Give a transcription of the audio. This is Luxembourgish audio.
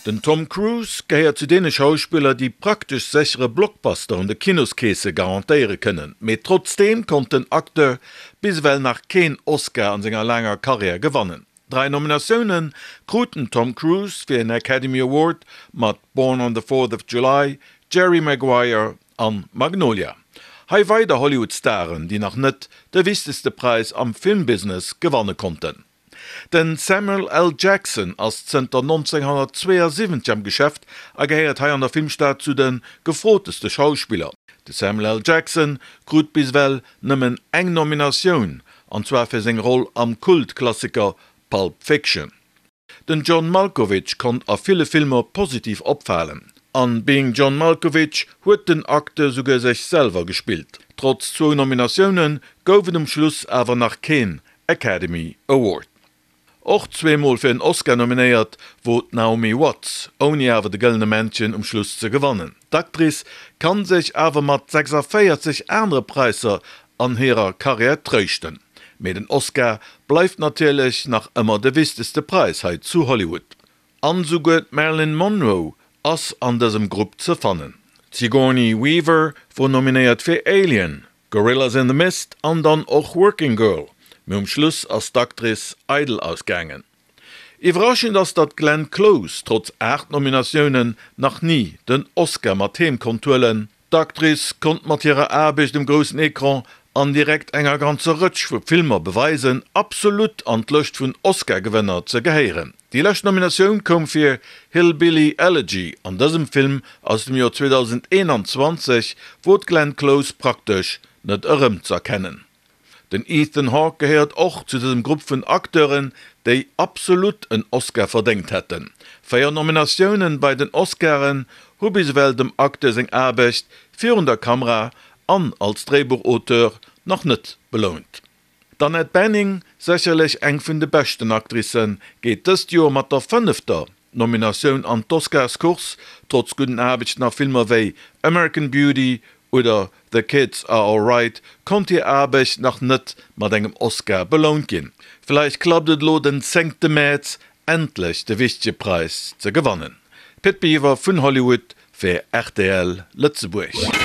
Den Tom Cruise gehéiert zu deene Schauspiller, déi praktesch séchere Blockbuster un de Kinoskeese garantéiere kënnen. Mee trotzdeem konnt den Acteur bis ewell nach keen Oscar an senger laanger Karriär gewannen. Drai Nominatioune krut den Tom Cruise fir en Academy Award mat Born on the Fourth of July, Jerry Maguire an Magnolia. Hei weider Hollywood-Staren, déi nach net de wichtegste Präis am Filmbusiness gewanne konnten. Den Samuel L. Jackson ass zënter 1972 am Geschäft a gehéiert hei an der Filmstad zu de gefroteste Schauspiller. De Samuel L. Jackson krut bis ewell nëmmen eng Nominatioun, an zwar fir seng Roll am Kultklassiker Pulp Fiction. Den John Malkovich konnt a ville Filmer positiv opfalen. An Being John Malkovich huet den Acteur souguer sech selwer gespillt. Trotz zwou Nominatioune gouf et um Schluss awer nach keen Academy Award. Och zweemol fir en Oscar nominéiert wor d'Naomi Watts, ouni awer de Gëllene Männchen um Schluss ze gewannen. D'Actrice kann sech awer mat 46 anere Präisser an hirer Karriär tréischten. Mee den Oscar bleift natierlech nach ëmmer de wichtegste Präis hei zu Hollywood. An souguer d'Marilyn Monroe ass an dësem Grupp ze fannen. D'Sigourney Weaver wor nominéiert fir Alien, Gorillas in the Mist an dann och Working Girl, mee um Schluss ass d'Actrice eidel ausgaangen. Iwwerraschend ass, datt d'Glenn Close trotz 8 Nominatiounen nach ni den Oscar mat heem konnt huelen. D'Actrice konnt mat hirer Aarbecht um groussen Ecran an direkt enger ganzer Rëtsch vu Filmer beweisen, absolut an d'Lëscht vun Oscar-Gewënner ze gehéieren. Déi lescht Nominatioun koum fir Hillbilly Elegy. An dësem Film aus dem Joer 2021 wor d'Glenn Close praktesch net erëmz'erkennen. Den Ethan Hawke gehéiert och zu dësem Grupp vun Acteuren, déi absolut en Oscar verdéngt hätten. 4 Nominatiounen bei den Oscaren hu bis ewell dem Acteur seng Aarbecht virun der Kamera an als Dréibuchauteur nach net belount. D'Annette Bening, sécherlech eng vun de beschten Actricen, geet dëst Joer mat der fënnefter Nominatioun an d'Oscarscourse, trotz gudden Aarbechten a Filmer wéi American Beauty oder The Kids Are Alright konnt hir Aarbecht nach net mat engem Oscar belount ginn. Vläicht klappt et elo den zéngte Mäerz endlech de wichtege Präis ze gewannen. Pit Biwer vun Hollywood fir rtl Lëtzebuerg.